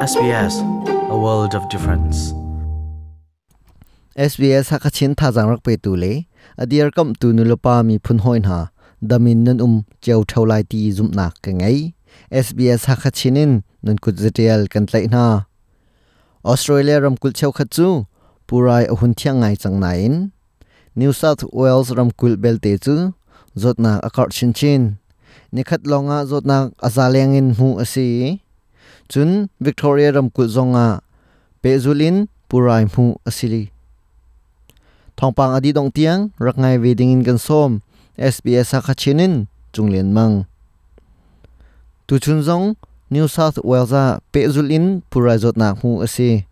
SBS, a world of difference. SBS Hakachin thazaang rak petu le a dirkamhtu nulepa miphun hawi hna damin nan um cio theo lai ti zumhnak ka ngei. SBS Hakachin in nan kut zatial kan tlaih hna. Australia ramkulh cheukhat cu purai a hun thiang ngai cang nain New South Wales ramkulh belte cu zawtnak a karh chinchin. Nikhat lawngah zawtnak a za leng in hmuh a si. Cun Victoria ramkulh zongah pehzul in purai hmuh a si. Thawngpang a dih dongh tiang rak ngai ve dingin kan sawm. SBS Hakha in Cunglian Mang. Tuchun zong New South Wales ah pehzul in purai zawtnak hmuh a si.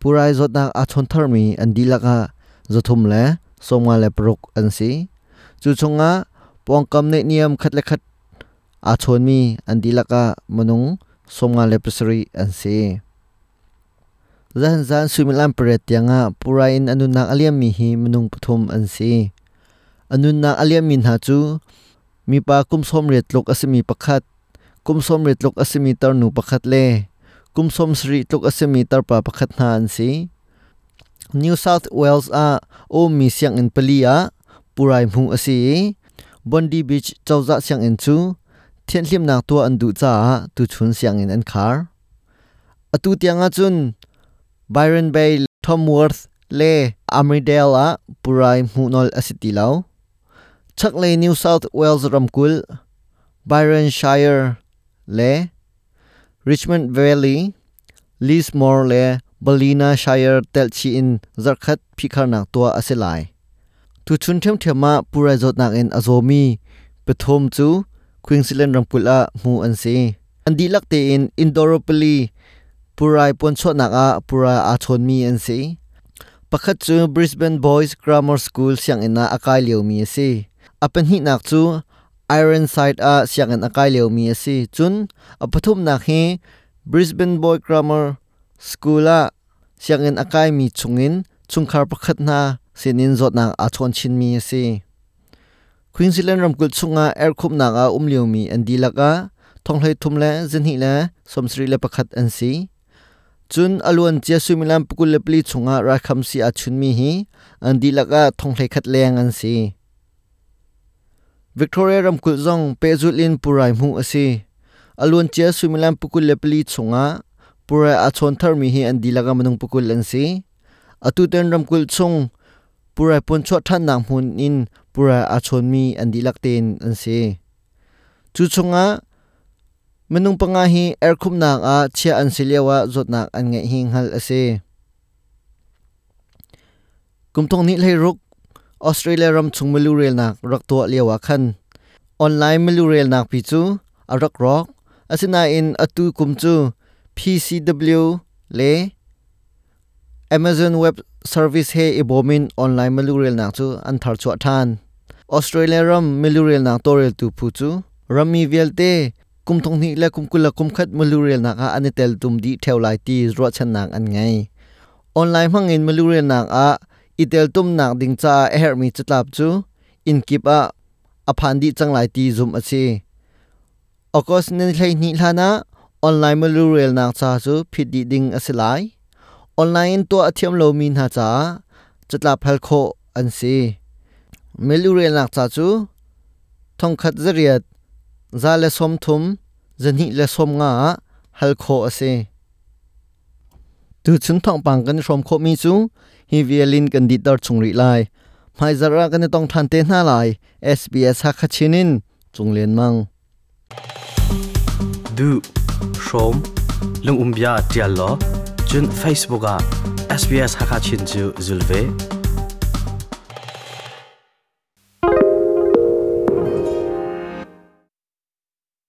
Purai zawtnak aa chawn tharmi an dihlak ah 356 an si. Cu chungah pawngkam neihniam khat le khat aa chawnmi an dihlak ah minung 57 an si. Zahan zan suimilam pariat tiangah purai in a nunnak a liammi hi minung pathum an si. A nunnak a liammi hna cu mipa kum 80 tluk a simi pakhat, kum 80 tluk a simi tarnu pakhat le kum 70 tluk a simi tarpa pakhat hna an si. New South Wales ah a ummi sianginn pali ah purai hmuh a si i Bondi Beach cozah sianginn cu thianhhlimnak tuah an duh caah tuchun sianginn an khar. Atu tiang ahcun Byron Bay, Tamworth le Armidale ah purai hmuh nawl a si ti lo. Chaklei New South Wales ramkulh, Byron Shire le Richmond Valley, Lismore le Ballina Shire telhchih in zarhkhat phihkharnak tuah a si lai. Tuchun ṭhiamṭhiam ah purai zawtnak in a zawmi pathum cu Queensland ramkulh ah hmuh an si. An dihlak tein Indooroopilly purai puanchuahnak ah purai aa chawnmi an si. Pakhat cu Brisbane Boys Grammar School sianginn ah a kai liomi a si. A pahnihnak cu Ironside ah sianginn a kai liomi a si. Cun a pathumnak hi Brisbane Boy Grammar School ah sianginn a kaimi chungin chungkhar pakhat hna sinin zawtnak aa chawn chinmi a si. Queensland ramkulh chungah erhkhumhnak ah um liomi an dihlak ah thonghlei thum le zahnih le 71 an si. Cun a luancia suimilam 24 chungah raikhamsi aa chunmi hi an dihlak ah thonghlei khat leng an si. Victoria ramkulh zong pehzulh in purai hmuh a si. A luancia suimilam 24 chungah purai aa chawn tharmi hi an dihlak ah minung 20 an si. Atutan ramkulh chung purai puanchuah ṭhannak hmun in purai aa chawnmi an dihlak tein an si. Cu chungah minung panga hi erhkhumhnak ah chiah an si lioah zawtnak an ngeih hi hngalh a si. Kum thong hnih hleiruk Australia ram chung milu relnak rak tuah lioah khan online milu relnak pi cu a rak rawk. Asinain atu kum cu PCW le Amazon Web Service he i bawm in online milu relnak cu an tharchuah ṭhan. Australia ram milu relnak tawlreltu phu cu rammi vialte kum thong hnih le kum 20 le kum khat milu relnak ah an i teltum dih ṭheo lai ti ruahchannak an ngei. Online hmangin milu relnak ah i teltumnak ding caah a herhmi catlap cu inn kip ah a phan dih cang lai ti zumh a si. August ni 12 hlan ah online milu relnak ca cu phit dih ding a si lai. Online in tuah a thiam lomi hna caah catlap hal khawh an si. Milu relnak ca cu 1000 8 130 290 ah hal khawh a si. Tuchun thawngpang kan i hrawm khawhmi cu hi vial in kan dihter chung rih lai. Hmaizarh ah kan i tong ṭhan te hna lai. SBS Hakha Chin in Cung Lian Mang. Duh, hrawm, lungum bia ṭial law, cun Facebook ah SBS Hakha Chin cu zul ve.